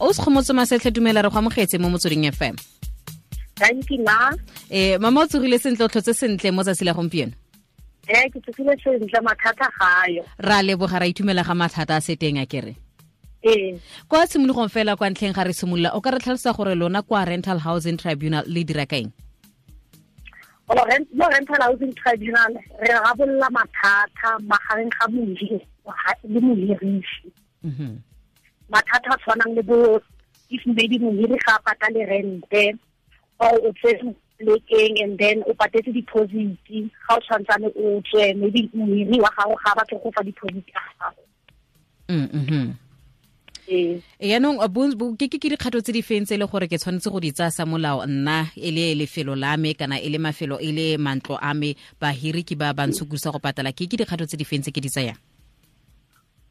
O se Kgomotso Masetlhe, dumela, re go amogetse mo Motsweding FM. Thank you, ma. Mama, o tsogile sentle, o tlhotse sentle mo tsatsi la gompieno? Ee, ke tsogile sentle, mathata gayo. Ra leboga, ra itumela ga mathata a se teng a kere. Ee. Kwa tshimologong fela, kwa ntlheng ga re simolola, o ka re tlhalosa gore lona kwa Rental Housing Tribunal le dira kaeng? Mo Rental Housing Tribunal re rarabolola mathata magareng ga mohiri le mohirisi. Mathata a tshwanang le bo if maybe mohiri ga a patale rente, or o tsere plekeng and then o patetse deposit, ga o tshwantsane o tswe, maybe mohiri wa gago ga a batle go fa deposit ya gago. Ee. Yaanong ke dikgato tse di feng tse e le gore ke tshwanetse go di tsaya sa molao nna, e le lefelo la me kana e le mafelo, e le mantlo a me, bahiri ke ba bantshokusa go patala, ke dikgato tse di feng tse ke di tsayang?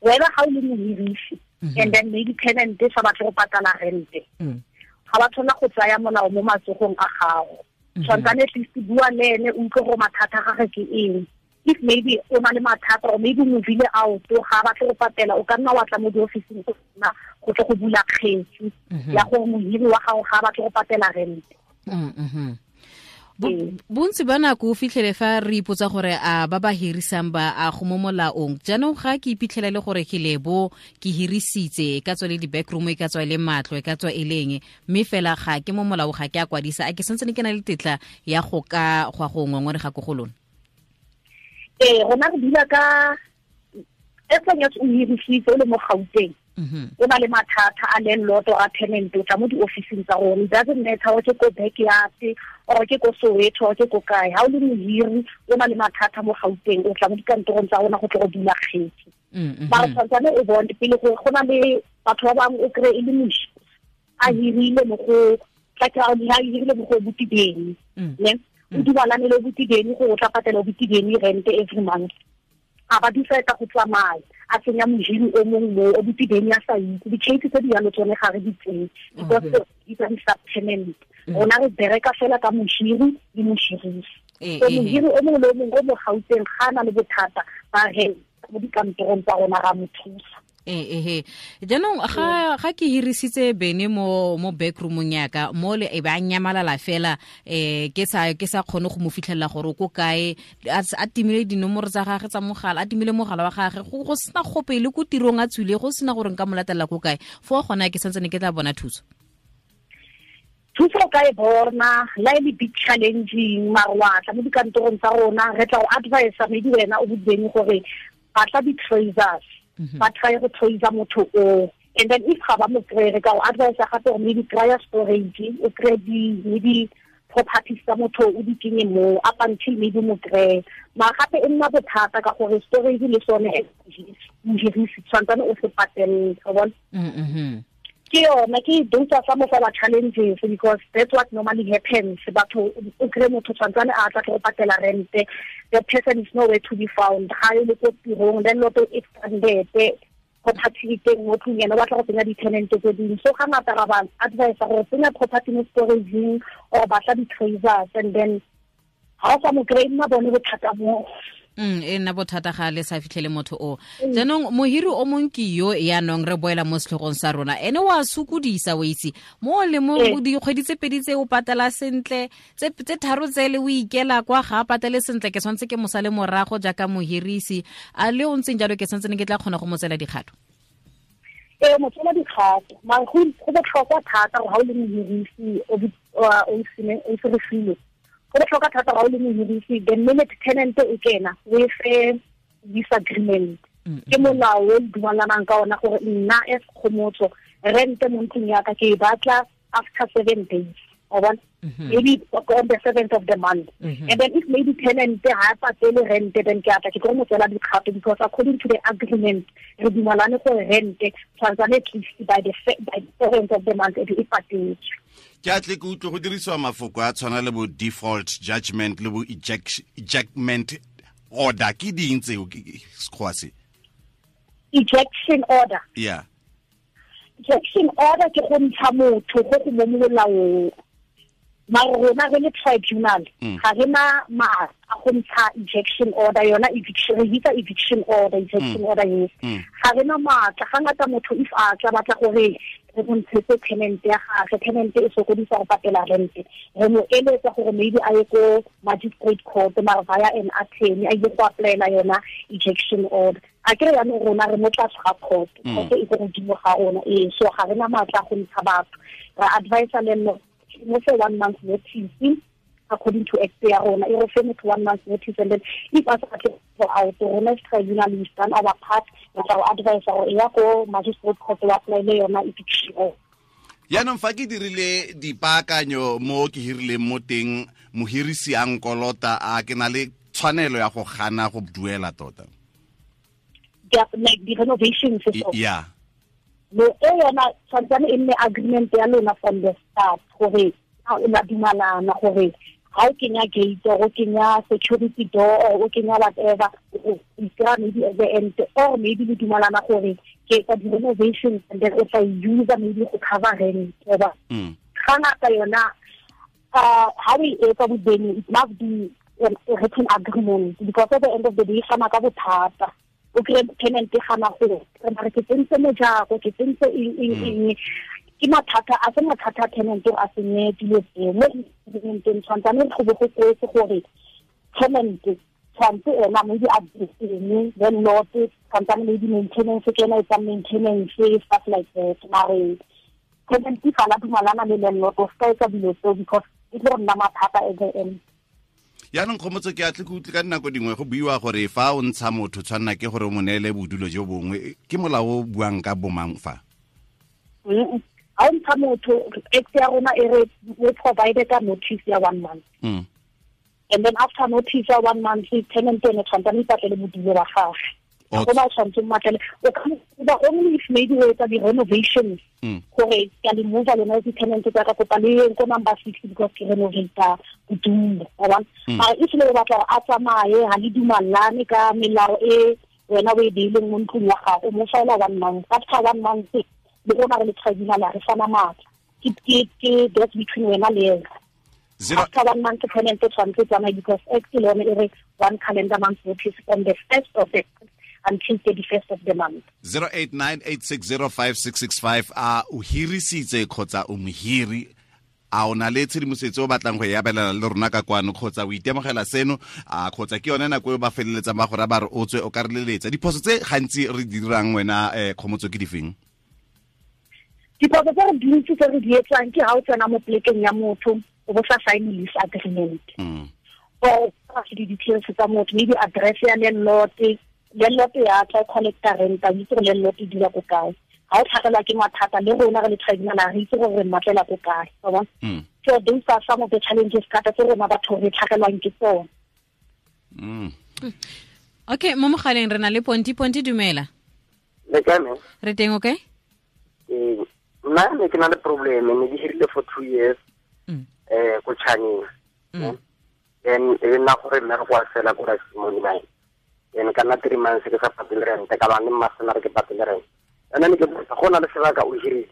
Wena ga o le mohirisi and then maybe tenant e sa batle go patala rente, ga ba tshwana go tsaya molao mo matsogong a gago. Tshwantsane at least bua le ene, o utlwe gore mathata a gage ke eng. If maybe o na le mathata or maybe movile out, ga batle go patela, o ka nna wa tla mo diofising go nna go tle go bula kgetsi ya gore mohiri wa gago ga batle go patela rente. Bontsi ba nako o fitlhele fa re ipotsa gore a ba ba hirisang ba a go mo molaong. Jaanong ga ke iphitlhela le gore ke lebo ke hirisitse, e ka tswa le di-backroom, e ka tswa e le matlo, e ka tswa e leng, mme fela ga ke mo molao, ga ke a kwadisa, a ke santse ke na le tetla ya go ka go ya go ngongorega ko go lona? Ee, rona re dula ka as long as o hirisitse o le mo Gauteng, o na le mathata a landlord or a tenant, o tla mo di-officing tsa rona. It doesn't matter or ke ko backyard or ke ko Soweto or ke ko kae. Ha o le mohiri o na le mathata mo Gauteng, o tla mo dikantorong tsa rona go tle go dula kgetsi. Mara tshwantsane o bone pele gore go na le batho ba bangwe o kry e le moši a hirile mo go tla ke a hirile mo go botibeng, ne o dumalane le botibeng gore o tla patela botibeng rent every month, a ba decide go tsamaya, a tsenya mohiri o mongwe mo o botibeng a sa itse. Di-case tse di yalo tsone ga re di tseye because di tsa di-subtenant. Rona re bereka fela ka mohiri le mohirisi. So mohiri o mongwe le o mongwe o mo Gauteng ga a na le bothata ba re mo dikantorong tsa rona, ra mo thusa. Ehe, jaanong ga ke hirisitse bene mo backroomong yaka mo le, e ba nyamalala fela, ke sa kgone go mo fitlhelela gore o ko kae, a timile dinomoro tsa gage tsa mogala, a timile mogala wa gage, go sena gope le ko tirong a tswile, go sena gore nka mo latelela ko kae, fo gona ke santsene ke tla bona thuso? Thuso o ka e bona la e le big challenging, mare wa tla mo dikantorong tsa rona, re tla go advise maybe wena o bodibeng gore batla di-tracers, ba try go tracer motho o, and then if ga ba mo kry, re ka go advise gape gore maybe kry-a storage, o kry di maybe properties tsa motho, o di kenye mo up until maybe mo kry. Mara gape e nna bothata ka gore storage le sone mohirisi tshwantsane o se patelele, wa bona? Ke yona ke those are some of our challenges, because that's what normally happens. Batho o kry motho tshwantsane a tla go patela rente, the person is nowhere to be found, ga e le ko tirong, then loto e stranded, property e teng mo tlung, ena o batla go tsenya di-tenant tse dingwe. So ga ngata ra ba advise gore tsenya property mo storageng or batla di-tracers, and then ga o sa mo kry, nna bone bothata mo. E nna bothata ga le sa fitlhele motho o. Jaanong mohiri o mong ke yo, yaanong re boela mo setlhogong sa rona, ene wa sokodisa, o itse mo le mo dikgwedi tse 2 tse o patela sentle, tse 3 tsele o ikela kwa, ga a patele sentle, ke tshwanetse ke mosale morago jaaka mohirisi a le o ntseng jalo, ke tshwanetse ke tla kgona go mo tsela dikgato? Ee, mo tsela dikgato, mare go botlhokwa thata gore ga o le mohirisi o se re file, go botlhokwa thata ga o le mohirisi, the minute tenant e kena, o e fe disagreement. Ke molao o dumalanang ka ona gore nna as Kgomotso, rente mo ntlong yaka ke e batla after 7 days, o bona, maybe on the seventh of the month, and then if maybe tenant ha patele rent, then ke atla ke tlo mo tsela dikgato, because according to the agreement re dumalane gore rent tshwantsane at least by the seventh of the month e be e patetswe. Ke a tle ke utlwe go dirisiwa mafoko a tshwana le bo default judgment le bo ejectment order. Ke ding tseo? Sekgowa se? Ejection order? Yeah. Ejection order ke go ntsha motho go go mo molaong. Mara rona re le tribunal ga re na maatla a go ntsha ejection order, yona eviction, re bitsa eviction order, ejection order, yes. Ga re na maatla. Ga ngata motho if a tla batla gore re mo ntshetse tenant ya gagwe, tenant e sokodisa go patela rent, re mo eletsa gore maybe a ye ko magistrate court, mara via an attorney, a ile go applyela yona ejection order. A kere yaanong rona re mo tlase ga court, court e ko godimo ga rona, ee. So ga re na maatla a go ntsha batho. Re advisa le mo fe 1 month notice according to act ya rona, e re fe motho 1 month notice, and then if a sa batle go out, rona as tribunal we stand our part, re tla go advise gore e ya ko magistrate court wa applyele yona eviction order. Yaanong fa ke dirile dipaakanyo mo ke hirileng mo teng, mohirisi a nkolota, a ke na le tshwanelo ya go gana go duela tota? Like the renovations. Yeah. No, e yona tshwantsane e nne agreement ya lona from the start gore la dumalana gore ha o kenya gate or o kenya security door or o kenya whatever, o ikra maybe at the end, or maybe le dumalana gore ke etsa di-renovations and then o tla use maybe go cover rent. Ga ngata yona ha o e etsa bodeni, it must be a written agreement, because at the end of the day fana ka bothata. O kry tenant e gana go re ke tsentse mojako, ke tsentse eng, ke mathata a se mathata a tenant a senye dilo tseo mo agreementeng. Tshwantsane go be go kwetse gore tenant tshwantse ena maybe a eng, landlord tshwantsane maybe maintenance ke ena etsang maintenance, stuff like that. Mare tenant fa la dumalana le landlord o ska etsa dilo tseo, because e tlo nna mathata at the end. Yaanong Kgomotso, ke atle ke utlwe ka dinako dingwe go buiwa gore fa o ntsha motho tshwanna ke gore o mo neele bodulo jo bongwe, ke molao o buang ka bomang fa? Ha o ntsha motho, act ya rona e re we provide ka notice ya 1 month. And then after notice ya 1 month, tenant ene tshwantsane ipatlele bodulo ba gagwe. Go ba tshwanetse mmatlele. O ka ba only if maybe o etsa di-renovations gore ke a le move lona di-tenant tsa ka kopa le yeng ko number 6 because ke renovata bodulo, wa bona. Mara if le batla gore a tsamaye, ha le dumallane ka melao e wena o e beileng mo ntlong ya gago, o mo fela 1 month. After 1 month, le rona re le tribunal re fana matla. Ke that's between wena le ena. After 1 month, tenant tshwanetse tsamaye, because act le yone e re 1 calendar month notice on the 1st of the until 31st of the month. 0898605665. A o hirisitse kgotsa o mohiri, a o na le tshedimosetso o batlang go e abelana le rona ka kwano, kgotsa o itemogela seno, a kgotsa ke yone nako e ba feleletsang ba gore ba re o tswe o ka re leletsa. Diphoso tse gantsi re di dirang wena Kgomotso ke difeng? Diphoso tse re dintsi tse re di etsang ke ha o tsena mo plekeng ya motho o bo sa sign lease agreement. Or di-details tsa motho, maybe address ya landlord, landlord ya tla collecta rent, a itse gore landlord e dula ko kae. Ha o tlhagelwa ke mathata le rona re le tribunal re itse gore re mmatlela ko kae, wa bona. So those are some of the challenges thata tse rona batho re tlhagelwang ke tsone. Okay, mo mogaleng re na le Ponti. Ponti, dumela. Le kae mme? Re teng, okay? Nna ne ke na le problem, ne ke hirile for 2 years ko Chaneng. Then e nna gore mmereko wa fela ko Rasimone mine. Then ka nna 3 months ke sa patele rent, ka ba ne mmasena re ke patele rent. And then ke botsa, go na le sebaka o hirile,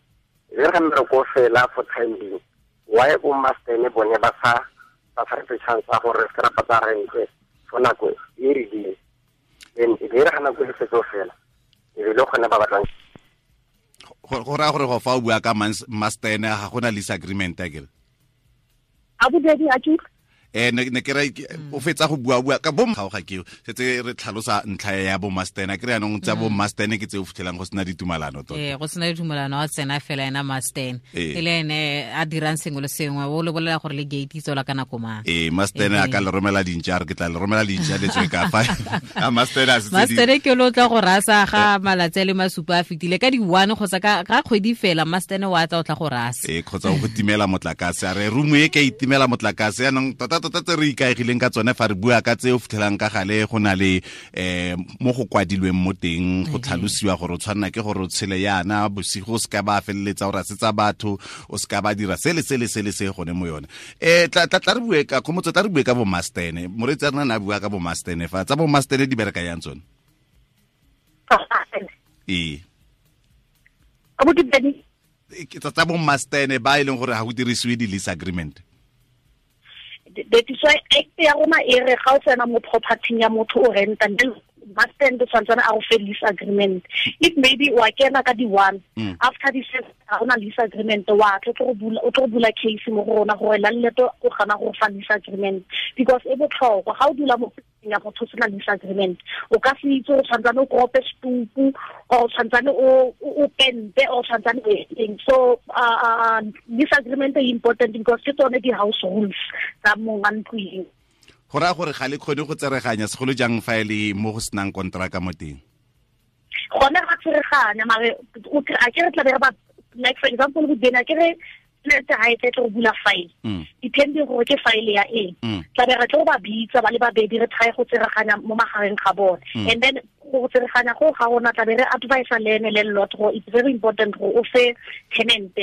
e re ga mmereko o fela for time being, why bo mastene bone ba sa re fe chance ya gore re se ra patela rent for nako e rileng? Then e re ga nako e setse o fela, e be le gone ba batlang. Go raya gore go fa o bua ka mastene ga gona lease agreement akere? A bobedi a ke ne ke re o fetsa go bua ka bo ga ke setse re tlhalosa ntlha ya bo mastene ke re yanong tsa bo mastene ke tse o fitlhelang go sena ditumalano tota. Go sena ditumalano, a tsena fela ena mastene e le ene a dirang sengwe le sengwe, o le bolela gore le gate itsola ka nako mang. Mastene a ka le romela dintša, re ke tla le romela dintša le tswe ka fa. A mastene a setse mastene ke lo tla go rasa ga malatsi a le masupa a fetile ka di 1 kgotsa ka kgwedi fela, mastene wa tla o tla go rasa. Kgotsa go timela motlakase, a re room e ke itimela motlakase yanong tota tota tse re ikaegileng ka tsone fa re bua ka tse o fitlhelang ka gale go na le mo go kwadilweng mo teng go tlhalosiwa gore o tshwanna ke gore o tshele yana bosigo, o seka ba feleletsa o rasetsa batho, o seka ba dira sele sele sele se gone mo yone. Tla re bue ka Kgomotso, tla re bue ka bo mastene. Moreetsi a rena ne a bua ka bo mastene fa tsa bo mastene di bereka yang tsone? Tsa bo mastene ba e leng gore ga go dirisiwe di-lease agreement. That is why act ya rona e re ga o tsena mo property ya motho o renta, must tshwantsane a go fe lease agreement. If maybe wa kena ka di 1, after the first ga ona lease agreement, wa tlo go bula, o tlo bula case mo go rona gore landlord o gana go fa lease agreement, because e botlhokwa ga o dula mo ya motho sena lease agreement, o ka se itse o tshwantsane o kope stupu or tshwantsane o pente or tshwantsane o eng. So lease agreement e important because ke tsone di house rules tsa mong a ntlo eo. Go raya gore ga le kgone go tsereganya segolo jang fa e le mo go senang kontraka mo teng? Gone ga tsereganya, mare a ke re tla be re ba, like for example go dena ke re tšhelete ga e tle go bula file, depending gore ke file ya eng, tla be re tlo ba bitsa ba le babedi, re try go tsereganya mo magareng ga bone. And then go tsereganya go ga rona tla be re advise le ene landlord gore it's very important gore o fe tenant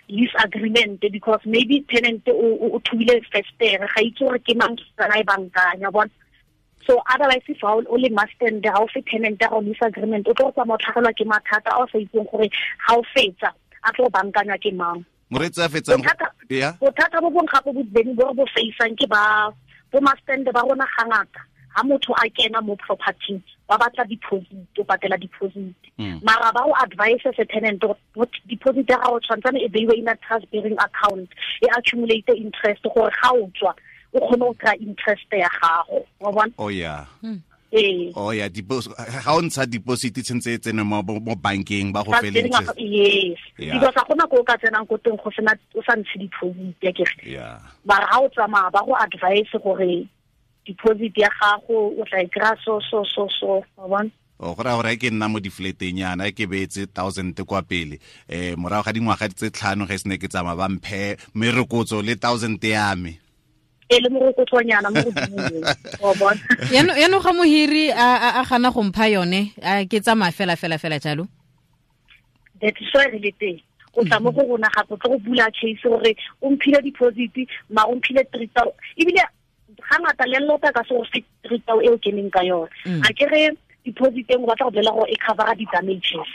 lease agreement, because maybe tenant o thubile festere, ga itse gore ke mang tsana e bankanya bona. So otherwise if o le master ga o fe tenant ya go lease agreement, o tlo go tsamaya o tlhagelwa ke mathata a o sa itseng gore ga o fetsa a tlo bankanya ke mang. Moreetsi a fetsang ya bothata bo bong gape bo beng bo re bo faceang ke ba bo master ba rona gangata ha motho a kena mo property ba batla deposit, o patela deposit, mara ba o advise se tenant deposit ya gago tshwantsane e beiwe in a trust bearing account, e accumulate interest gore ga o tswa o kgone go kry interest ya gago, wa bona. Oh yeah. Oh yeah, ga o ntsha deposit tshentse e tsene mo bankeng ba go fele interest. Yes. Because ga gona ko o ka tsenang ko teng go sena o sa ntshe deposit ya kere. Yeah. Mara ga o tsamaya ba go advise gore deposit ya gago o tla e kry-a so so so so, wa bona. O go raya gore ke nna mo di-flateng yana ke beetse 1000 kwa pele, morago ga dingwaga tse 5 ge se ne ke tsamaya ba mphe merokotso le 1000 ya me. E le morokotsonyana mo godimo, wa bona. Yaanong ga mohiri a gana go mpha yone, ke tsamaya fela fela fela jalo. That is why re le teng. O tla mo go rona gape o tlo go bula case gore o mphile deposit, mara o mphile 3000, ebile ga ngata landlord a ka se go fe 3000 eo keneng ka yone. A ke re deposit eng o batla go bolela gore e covera di-damages,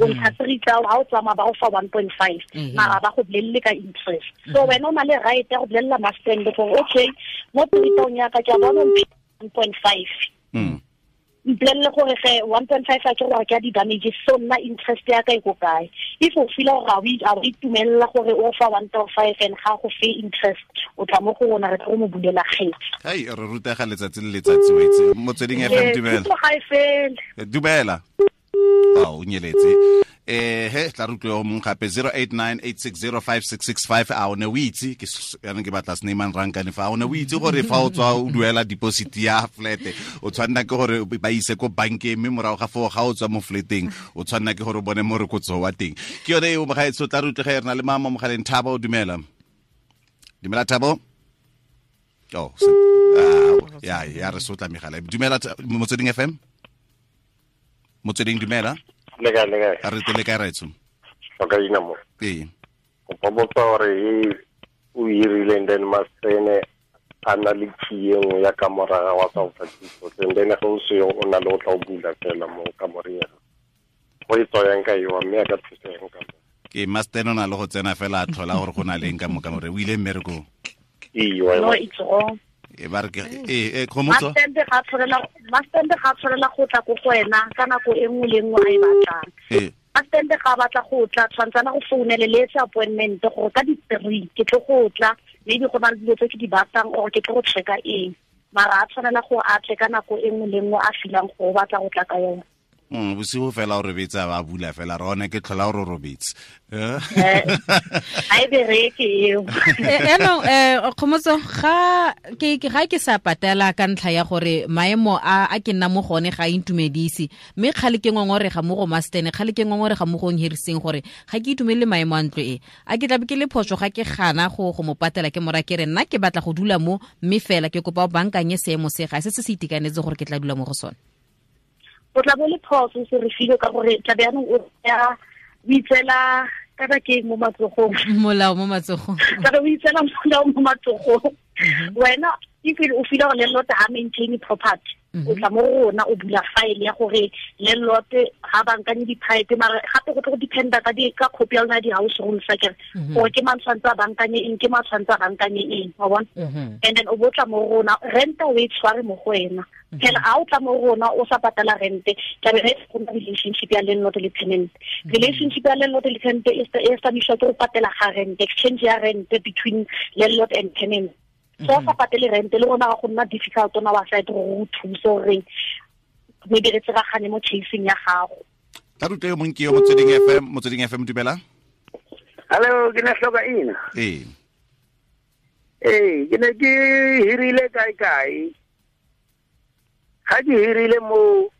o ntsha 3000 ga o tsamaya ba go fa 1.5, mara ba go bolelele ka interest. So wena o na le right ya go bolelela master gore okay mo 3000 ya ka ke a bona 1.5, mpolelele gore ge 1.5 a ke gore ke a di-damages, so nna interest ya ka e ko kae. If o feela gore ga o itumelela gore o fa 1.5 and ga go fe interest, o tla mo go rona re tlo mo bulela kgetsi. Hai, re rutega letsatsi le letsatsi wa itse. Motsweding FM, dumela. Ga e fele. Dumela. O nyeletse. He tla re utlwe o mong gape 0898605665. A o ne o itse ke yana ke batla Snyman Rankane fa o ne o itse gore fa o tswa o duela deposit ya flat o tshwanna ke gore ba ise ko bankeng, mme morago ga foo ga o tswa mo flateng o tshwanna ke gore o bone morokotso wa teng. Ke yone eo mogaetsho, tla re utlwe ge re na le mama mogaleng. Thabo, dumela. Dumela Thabo. Oh, ya ya re sotla megala. Dumela Motsweding FM. Motsweding, dumela. Le kae, le kae? A re tele kae raetsho? O ka ina mo. Ee. O botsa gore o hirile and then mastene a na le key e nngwe ya kamora wa sa o fa thuso, and then ge o seo o na le o tla o bula fela mo kamoreng ya gago. Go e tswayang ka eo, mme a ka thusa eng ka mo? Ke master o na le go tsena fela a tlhola gore go na le eng ka mo kamoreng. O ile mmerekong? Ee, No, it's wrong. E ba re ke Kgomotso. Master ga tshwanela go tla ko go wena ka nako e nngwe le nngwe a e batlang. Master ga batla go tla tshwantsana go founele le etse appointment gore ka di-3 ke tlo go tla, maybe go na le dilo tse ke di batlang or ke tlo go checka eng. Mara a tshwanela go a tle ka nako e nngwe le nngwe a feelang gore o batla go tla ka yone. Bosigo fela o robetse a ba bula fela re one ke tlhola o re robetse. Ga e bereke eo. Yaanong Kgomotso, ga ke sa patela ka ntlha ya gore maemo a ke nna mo gone ga a intumedise, mme kgale ke ngongorega mo go mastene, kgale ke ngongorega mo go nhiriseng gore ga ke itumelele maemo a ntlo e, a ke tlabe ke le phoso ga ke gana go mo patela, ke mora ke re nna ke batla go dula mo, mme fela ke kopa o bankanye seemo se ga se se itekanetse gore ke tla dula mo go sone. O tla bo le phoso se re file ka gore tla be yanong o ya o itseela kana ke mo matsogong, molao mo matsogong, tla be o itseela molao mo matsogong. Wena if o feel gore landlord ha maintain property, O tla mo rona o bula file ya gore landlord ga bankanye di-pipe, mara gape go tlo go dependa ka di ka copy ya lona di-house rules akere, gore ke mang tshwanetse a bankanye eng, ke mang tshwanetse a bankanye eng, wa bona. And then o bo tla mo rona, renta o e tshware mo go wena phela. A o tla mo rona o sa patala rente, tlabe re go na relationship ya landlord le tenant. Relationship ya landlord le tenant e establishwa ke go patela ga rent, exchange ya rent between landlord and tenant. So o sa patele rent, le rona ga go nna difficult on our side gore o thuse gore maybe re tseragane mo chasing ya gago. Tla rute yo mongwe ke yo Motsweding FM. Motsweding FM, dumela. Hello, ke ne hloka ina. Ee. Ee, ke ne ke hirile kae kae. Ga ke hirile mo,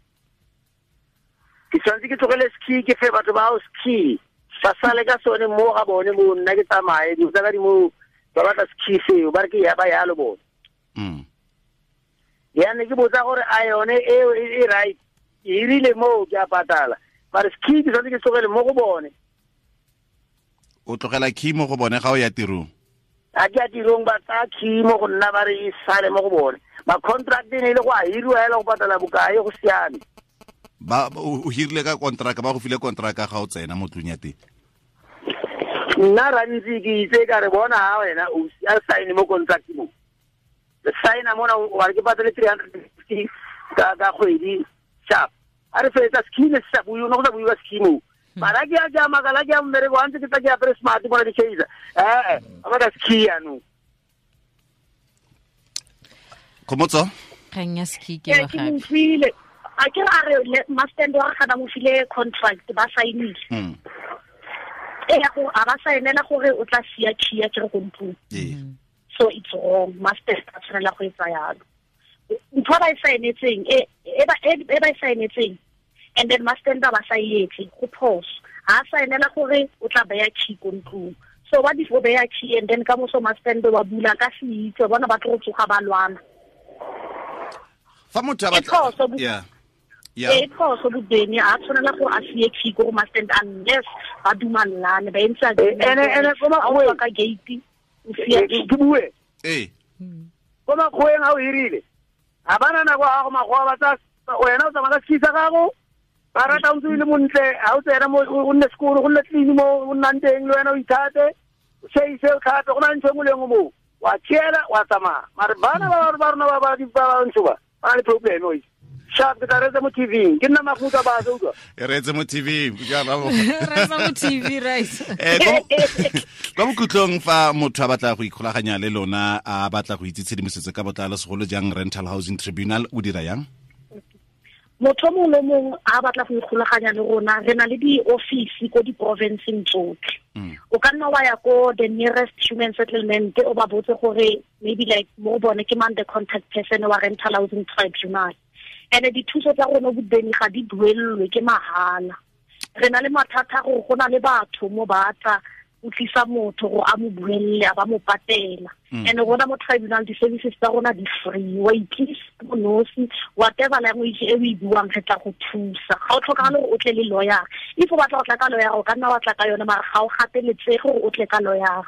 ke tshwanetse ke tlogele ski, ke fe batho ba house key. Ba sale ka sone mo ga bone mo, nna ke tsamaye, dilo tsa ka di mo, ba batla ski seo, ba re ke ya ba yalo bone. Ya ne ke botsa gore a yone eo e right. Ke hirile mo, ke a patala. Mare ski ke tshwanetse ke tlogele mo go bone. O tlogela key mo go bone ga o ya tirong? A ke ya tirong, ba tsaya key mo go nna, ba re e sale mo go bone. Ma contract e ne e le go a hiriwa hela go patala bokae, go siame. Ba o hirile ka contract, ba go file contract ga o tsena mo tlung ya teng? Nna rantsi ke itse ka re bona ha wena o a sign mo contract mo. Le sign mona wa re ke patale 350 ka kgwedi sharp. A re fetsa ski ne sa buiwa, no go sa buiwa ski mo. Mara ke a ja makala ke a mmereko wa ntse ke tla ke apere smart bona di chaser. A batla ski yanong. Khomotso? Kgang ya ski ke wa Ke gape. mo utlwile. A ke re a re mastand wa gana mo file contract, ba saenile. E ya go a ba saenela gore o tla sia key ya ke re ko ntlong. So it's wrong, master a tshwanela go etsa yalo. Ntho ba e saenetseng, e ba e saenetseng, and then master ba sa e etse, go phoso. Ha saenela gore o tla beya key ko ntlong. So what if o beya key and then ka moso master wa bula ka se itse, bona ba tlo go tsoga ba lwana. Fa motho a E batla phoso bo- Yeah. Yeah. E phoso bobeni, a tshwanela gore a sie key ko go master unless ba dumellane, ba entse agreement Ene ko gore ha o makgoweng. tswa ka gate, o sie key. Ke bue. Ee. Ko makgoweng ha o hirile, ha bana nako ya gago, makgowa ba tsa wena o tsamaya ka ski sa gago, ba rata o ntse o le montle, ha o tsena mo, o nne sekolo, go nne clean mo o nnang teng, le wena o ithate, o chaise, o tlhape, go na le ntho e nngwe le nngwe moo. Wa tšhela, wa tsamaya. Mare bana ba rona ba ba ntsho ba, ba na le problem o itse. Sharp, ke tla reetsa mo TV-ing. Ke nna Mafuta ba se utlwa. E reetse mo TV-ing, ke a rabo. Reetsa mo TV, right. Kwa bokhutlong, fa motho a batla go ikgolaganya le lona, a batla go itse tshedimosetso ka botlalo, segolo jang Rental Housing Tribunal, o dira yang? Motho mongwe le mongwe a batla go ikgolaganya le rona, re na le di-office ko di-provinceng tsotlhe. O ka nna wa ya ko the nearest human settlement, o ba botse gore maybe like mo bone ke mang the contact person wa Rental Housing Tribunal. And dithuso tsa rona bobeni ga di duelelwe, ke mahala. Re na le mathata gore go na le batho mo ba tla o tlisa motho gore a mo buelle, a ba mo patela. And rona mo tribunal di-services tsa rona di free, wa itlisa mo nosi, whatever language e o e buang re tla go thusa. Ga o tlhokagale gore o tle le lawyer. If o batla go tla ka lawyer, o ka nna wa tla ka yone, mara ga o gateletsege gore o tle ka lawyer.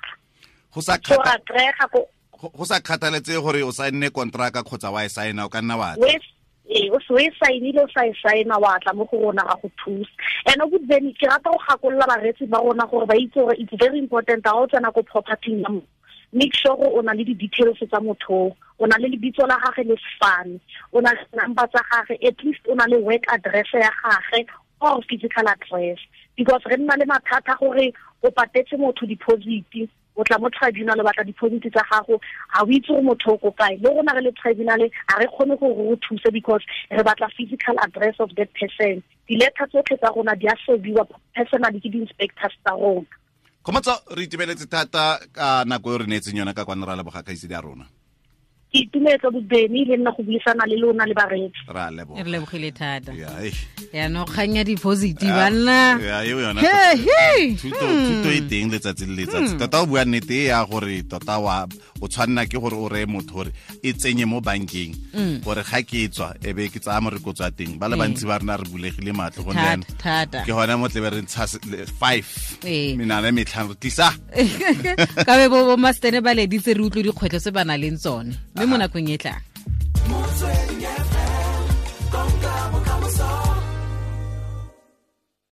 Go sa So ra kry-ega ko go sa kgathaletse gore o saenne kontraka kgotsa wa e saena, o ka nna wa tla. Wes, ee, o se o e saenile, o sa e saena, wa tla mo go rona ga go thusa. And o bobeni, ke rata go gakolola bareetsi ba rona gore ba itse gore it's very important ha o tsena ko property ya motho, make sure gore o na le di-details tsa motho, o na le lebitso la gagwe le sefane, o na le number tsa gagwe, at least o na le work address ya gagwe or physical address. Because re nna le mathata gore o patetse motho deposit, o tla mo tribunal o batla deposit tsa gago, ha o itse gore motho o ko kae. Le rona re le tribunal ha re kgone gore re o thuse because re batla physical address of that person. Di-letter tsotlhe tsa rona di a serviwa personally ke di-inspectors tsa rona. Khomotso, re itumeletse thata ka nako e re neetseng yona ka kwano, ra leboga kgaitsedi ya rona. Ke itumetse bobeni le nna go buisana le lona le bareetsi. Ra leboga. Re lebogile thata. Ya, eish. Yaanong kgang ya deposit, banna. Ya, eo yona. He, he. Thuto e teng letsatsi le letsatsi. Tota o bua nnete e ya gore tota o tshwanna ke gore o reye motho gore e tsenye mo bankeng, gore ga ke tswa e be ke tsaya morokotso wa teng. Ba le bantsi ba rena re bulegile matlho gonne Thata, jaanong thata. ke gona mo tlebe re ntsha 5 menana e metlhano re tlisa. Ka be bo mastene ba leditse re utlwe dikgwetlho tse ba nang le tsone, mme mo nakong e tlang.